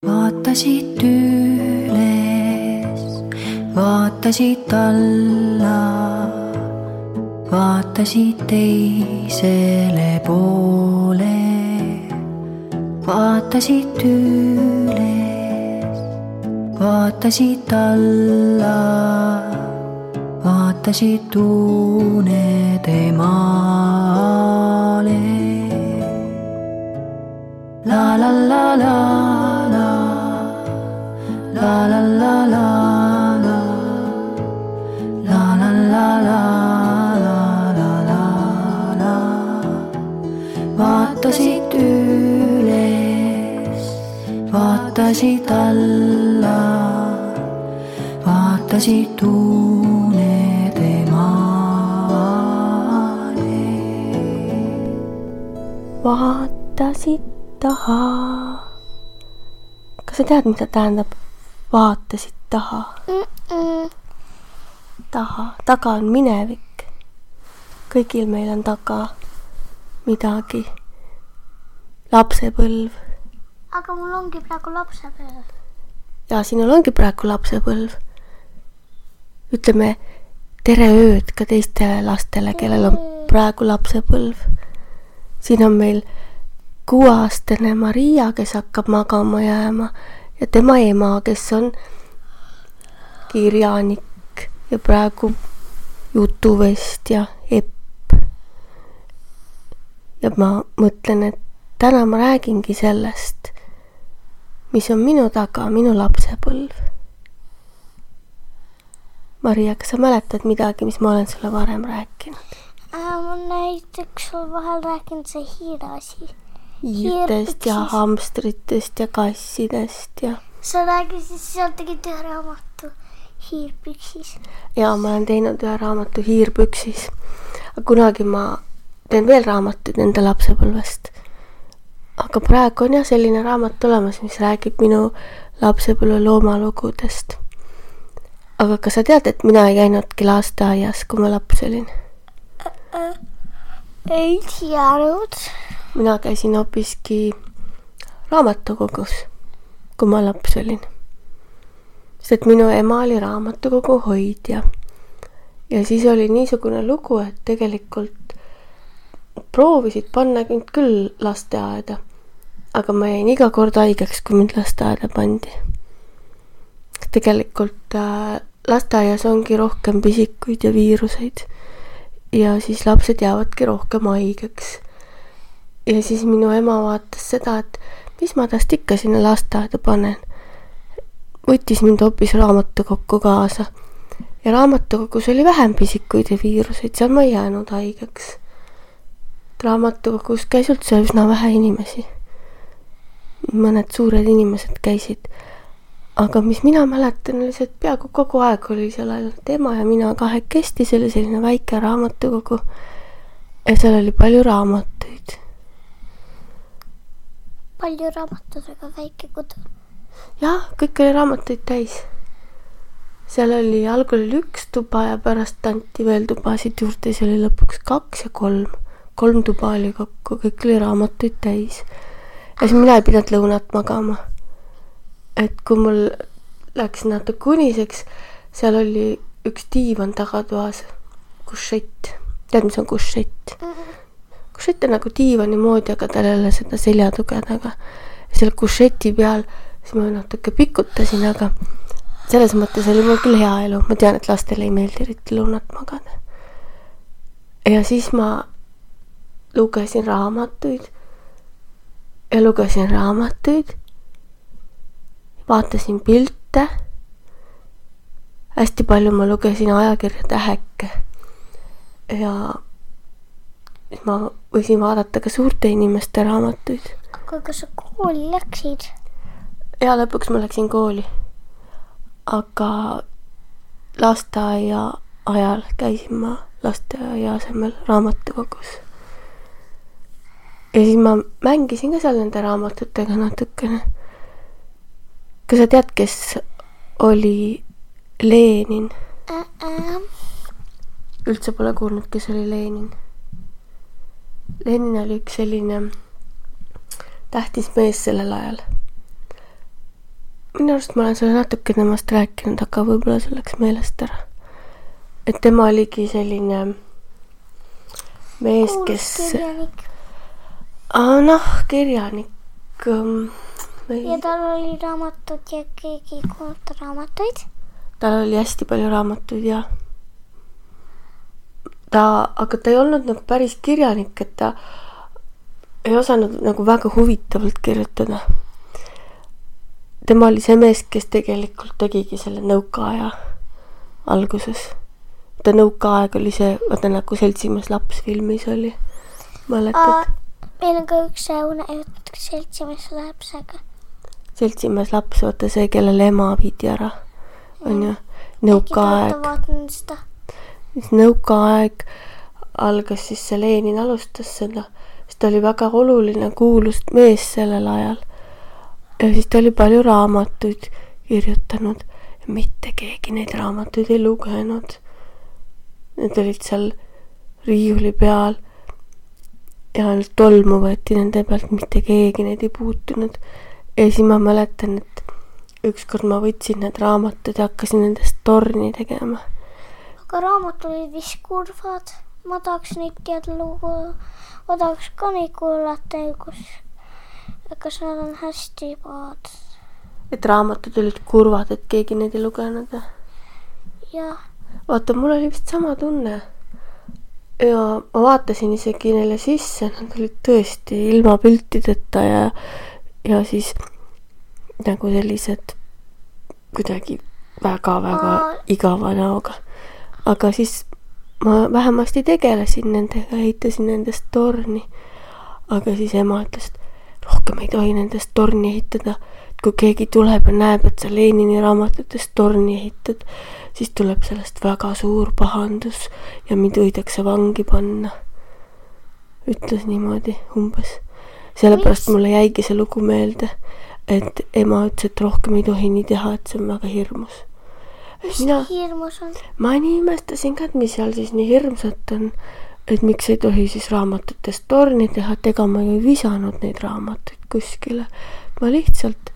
Vaatasid üles, vaatasid alla, vaatasid teisele poole. Vaatasid üles, vaatasid alla, vaatasid unede maale. La la la la la, la la la la la, la la la la la la la la. Vaatasid üles, vaatasid alla, vaatasid unede maale. Vaatasid taha. Kas sa tead, mida tähendab vaatasid taha? Taga on minevik. Kõigil meil on taga midagi. Lapsepõlv. Aga mul ongi praegu lapsepõlv. Ja sinul ongi praegu lapsepõlv. Ütleme tere ööd ka teistele lastele, kellel on praegu lapsepõlv. Siin on meil 6-aastane Maria, kes hakkab magama jääma, ja tema ema, kes on kirjanik ja praegu jutuvestja Epp. Ja ma mõtlen, et täna ma räägingi sellest, mis on minu taga, minu lapsepõlv. Maria, kas sa mäletad midagi, mis ma olen sulle varem rääkinud? Ma näiteks sul vahel rääkinud see hiire asi. Hiirtest ja hamstritest ja kassidest ja... Sa räägisid, seal tegid ühe raamatu Hiirpüksis. Ja ma olen teinud ühe raamatu Hiirpüksis. Kunagi ma teen veel raamatuid enda lapsepõlvest. Aga praegu on jah selline raamat olemas, mis räägib minu lapsepõlve loomalugudest. Aga kas sa tead, et mina ei käinudki lasteaias, kui ma laps olin? Ei teadnud. Mina käisin hoopiski raamatukogus, kui ma laps olin. Sest minu ema oli raamatukogu hoidja. Ja siis oli niisugune lugu, et tegelikult proovisid panna küll lasteaeda. Aga ma jäin iga kord haigeks, kui mind lasteaeda pandi. Tegelikult lasteaias ongi rohkem pisikuid ja viiruseid. Ja siis lapsed jäävadki rohkem haigeks. Ja siis minu ema vaatas seda, et mis ma tast ikka sinna lasteaeda panen. Võttis mind hoopis raamatukokku kaasa. Ja raamatukogus oli vähem pisikuid ja viiruseid, seal ma ei jäänud haigeks. Raamatukogus käis üldse üsna vähe inimesi. Mõned suured inimesed käisid. Aga mis mina mäletan, oli see, et peaaegu kogu aeg oli seal ainult ema ja mina kahekesti, see oli selline väike raamatukogu. Ja seal oli palju raamatuid. Palju raamatutega väike kodu. Jah, kõik oli raamatuid täis. Seal oli algul 1 tuba ja pärast anti veel tubasid juurde. See oli lõpuks 2 ja 3. 3 tuba oli kokku, kõik oli raamatuid täis. Ja siis mina ei pidanud lõunat magama. Et kui mul läks natuke uniseks, seal oli 1 diivan tagatoas, kušett. Tead, mis on kušett? Kušett on nagu diivani moodi, aga tal ei ole seda seljatuge taga. Seal kušeti peal siis ma natuke pikutasin, aga selles mõttes oli mul küll hea elu. Ma tean, et lastele ei meeldi eriti lõunat magada. Ja siis ma lugesin raamatuid. Vaatasin pilte. Hästi palju ma lugesin ajakirja Täheke. Ja ma võisin vaadata ka suurte inimeste raamatuid. Aga kas sa kooli läksid? Ja lõpuks ma läksin kooli. Aga lasteaia ajal käisin ma lasteaia asemel raamatukogus. Ja siis ma mängisin ka seal nende raamatutega natukene. Kas sa tead, kes oli Lenin? Üldse pole kuulnud, kes oli Lenin. Lenin oli üks selline tähtis mees sellel ajal. minu arust ma olen sulle natuke temast rääkinud, aga võib-olla see läks meelest ära. Et tema oligi selline mees, kes... kirjanik. Kirjanik. Ja tal oli raamatud ja keegi ei kuulnud raamatuid. Tal oli hästi palju raamatuid ja aga ta ei olnud nagu päris kirjanik, et ta ei osanud nagu väga huvitavalt kirjutada. Tema oli see mees, kes tegelikult tegigi selle nõukaaja alguses. Ta nõukaaeg oli see, vaata nagu Seltsimees laps filmis oli. Mäletad? Meil on ka üks jutt Seltsimees lapsega. Seltsimees laps, vaata see, kellele ema viidi ära. On ju? Nõukaaeg. Nõukaaeg algas siis see Lenin alustas seda. Siis ta oli väga oluline kuulus mees sellel ajal. Ja siis ta oli palju raamatuid kirjutanud. Ja mitte keegi neid raamatuid ei lugenud. Need olid seal riiuli peal. Ja ainult tolmu võeti nende pealt, mitte keegi neid ei puutunud. Ja siis ma mäletan, et ükskord ma võtsin need raamatud ja hakkasin nendest torni tegema. Aga raamatud olid vist kurvad. Ma tahaks neid teada lugu. Ma tahaks ka neid kuulata, kas nad on hästi paad. Et raamatud olid kurvad, et keegi neid ei lugenud. Jah. Vaata, mul oli vist sama tunne. Ja ma vaatasin isegi neile sisse, nad olid tõesti ilma piltideta ja siis nagu sellised kuidagi väga-väga igava näoga. Aga siis ma vähemasti tegelesin nendega, ehitasin nendest torni. Aga siis ema ütles, et rohkem ei tohi nendest torni ehitada. Et kui keegi tuleb ja näeb, et sa Lenini raamatutest torni ehitad, siis tuleb sellest väga suur pahandus ja mind võidakse vangi panna. Ütles niimoodi umbes. Sellepärast mulle jäigi see lugu meelde, et ema ütles, et rohkem ei tohi nii teha, et see on väga hirmus. Mis hirmus on? Ma nii imestasin ka, et mis seal siis nii hirmsat on, et miks ei tohi siis raamatutest torni teha, et ega ma ju ei visanud neid raamatuid kuskile. Ma lihtsalt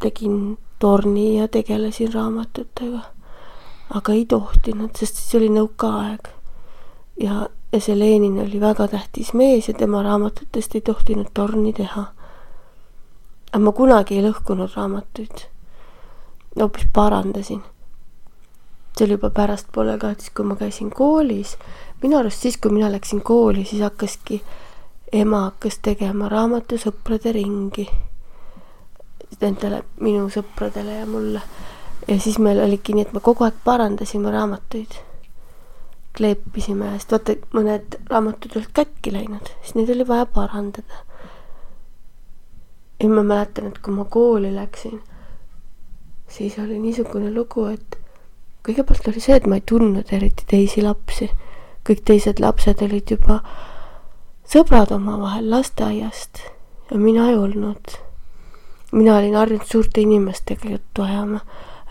tegin torni ja tegelesin raamatutega. Aga ei tohtinud, sest siis oli nõukaaeg. Ja see Lenin oli väga tähtis mees ja tema raamatutest ei tohtinud torni teha. Aga ma kunagi ei lõhkunud raamatuid. Hoopis parandasin. See oli juba pärast poole ka, et kui ma käisin koolis. Minu arust siis, kui mina läksin kooli, siis ema hakkas tegema raamatusõprade ringi. Nendele minu sõpradele ja mulle. Ja siis meil oligi nii, et me kogu aeg parandasime raamatuid. Kleepisime, sest vaata, mõned raamatud olid kätki läinud, siis neid oli vaja parandada. Ja ma mäletan, et kui ma kooli läksin, siis oli niisugune lugu, et kõigepealt oli see, et ma ei tundnud eriti teisi lapsi. Kõik teised lapsed olid juba sõbrad omavahel lasteaiast ja mina ei olnud. Mina olin harjunud suurte inimestega juttu ajama.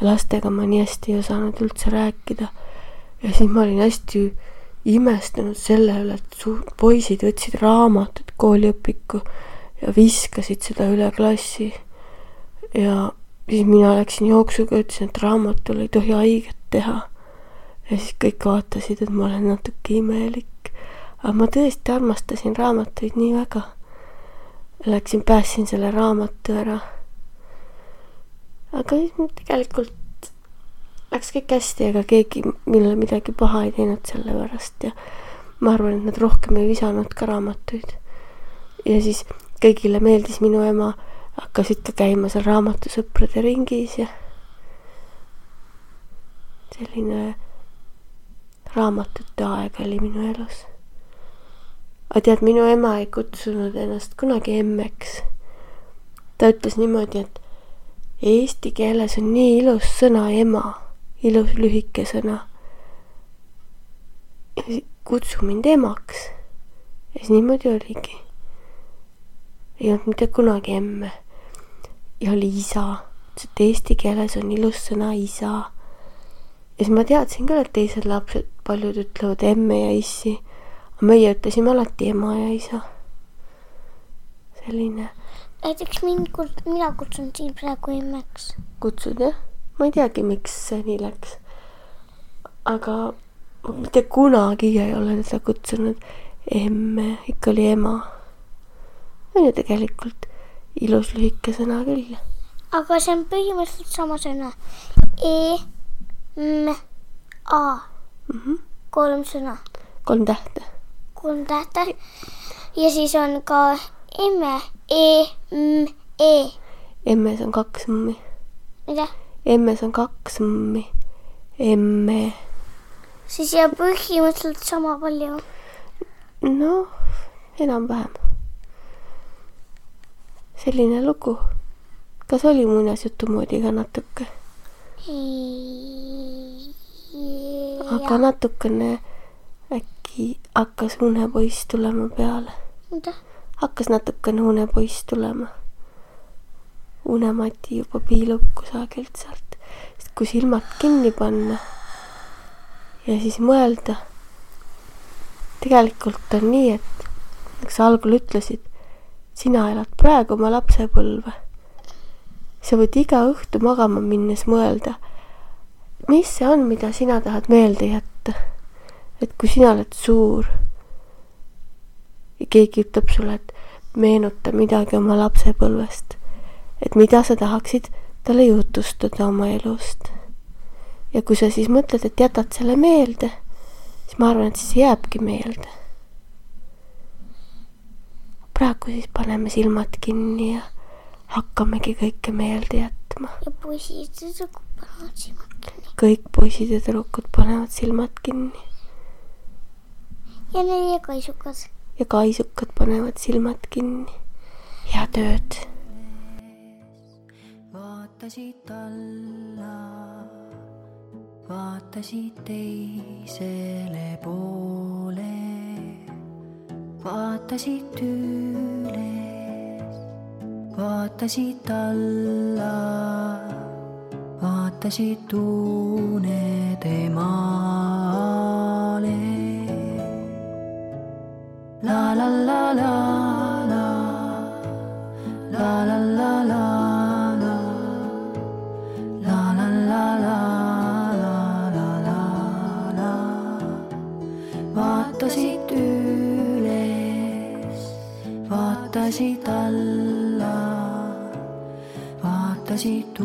Lastega ma nii hästi ei osanud üldse rääkida. Ja siis ma olin hästi imestunud selle üle, et poisid võtsid raamatut kooliõpiku ja viskasid seda üle klassi. Ja siis mina läksin jooksuga, ütlesin, et raamatul ei tohi haiget teha. Ja siis kõik vaatasid, et ma olen natuke imelik. Aga ma tõesti armastasin raamatuid nii väga. Pääsin selle raamatu ära. Aga tegelikult läks kõik hästi, aga keegi millele midagi paha ei teinud selle pärast ja ma arvan, et nad rohkem ei visanud ka raamatuid. Ja siis kõigile meeldis minu ema, hakkasid ka käima seal raamatusõprade ringis ja selline raamatute aeg oli minu elus. Aga tead, minu ema ei kutsunud ennast kunagi emmeks. Ta ütles niimoodi, et eesti keeles on nii ilus sõna ema, ilus lühike sõna. Kutsu mind emaks. Ja siis niimoodi oligi. Ei olnud mitte kunagi emme. Ja oli isa. Et eesti keeles on ilus sõna isa. Ja siis ma teadsin küll, et teised lapsed paljud ütlevad emme ja issi. Aga meie ütlesime alati ema ja isa. Selline. näiteks mina kutsun siin praegu emmeks. Kutsud, jah? Ma ei teagi, miks see nii läks. Aga mitte kunagi ei ole teda kutsunud emme, ikka oli ema. On ju tegelikult ilus lühike sõna küll. Aga see on põhimõtteliselt sama sõna. E, M, A. 3 sõna. 3 tähte. 3 tähte. Ja siis on ka emme. E, M, E. Emmes on 2 m. Mida? Emmes on 2 m. Emme. Siis jääb põhimõtteliselt sama palju. No, enam-vähem. Selline lugu. Kas oli muinasjutu moodi ka natuke? Aga natukene äkki hakkas unepoiss tulema peale. Mida? Hakkas natukene unepoiss tulema. Unemati juba piilub kusagilt sealt. Sest kui silmad kinni panna ja siis mõelda, tegelikult on nii, et nagu sa algul ütlesid, sina elad praegu oma lapsepõlve. Sa võid iga õhtu magama minnes mõelda, mis see on, mida sina tahad meelde jätta. Et kui sina oled suur ja keegi ütleb sulle, et meenuta midagi oma lapsepõlvest, et mida sa tahaksid talle jutustada oma elust. Ja kui sa siis mõtled, et jätad selle meelde, siis ma arvan, et siis jääbki meelde. Praegu siis paneme silmad kinni ja hakkamegi kõike meelde jätma. Ja poisid ja tüdrukud panevad silmad kinni. Kõik poisid ja tüdrukud panevad silmad kinni. Ja need kaisukad. Ja kaisukad panevad silmad kinni. Head ööd. Vaatasid alla, vaatasid teisele poole, vaatasid üles, vaatasid alla, vaatasid unede maale. La la la la la, la la la la. Vaatasid üles, vaatasid alla, vaatasid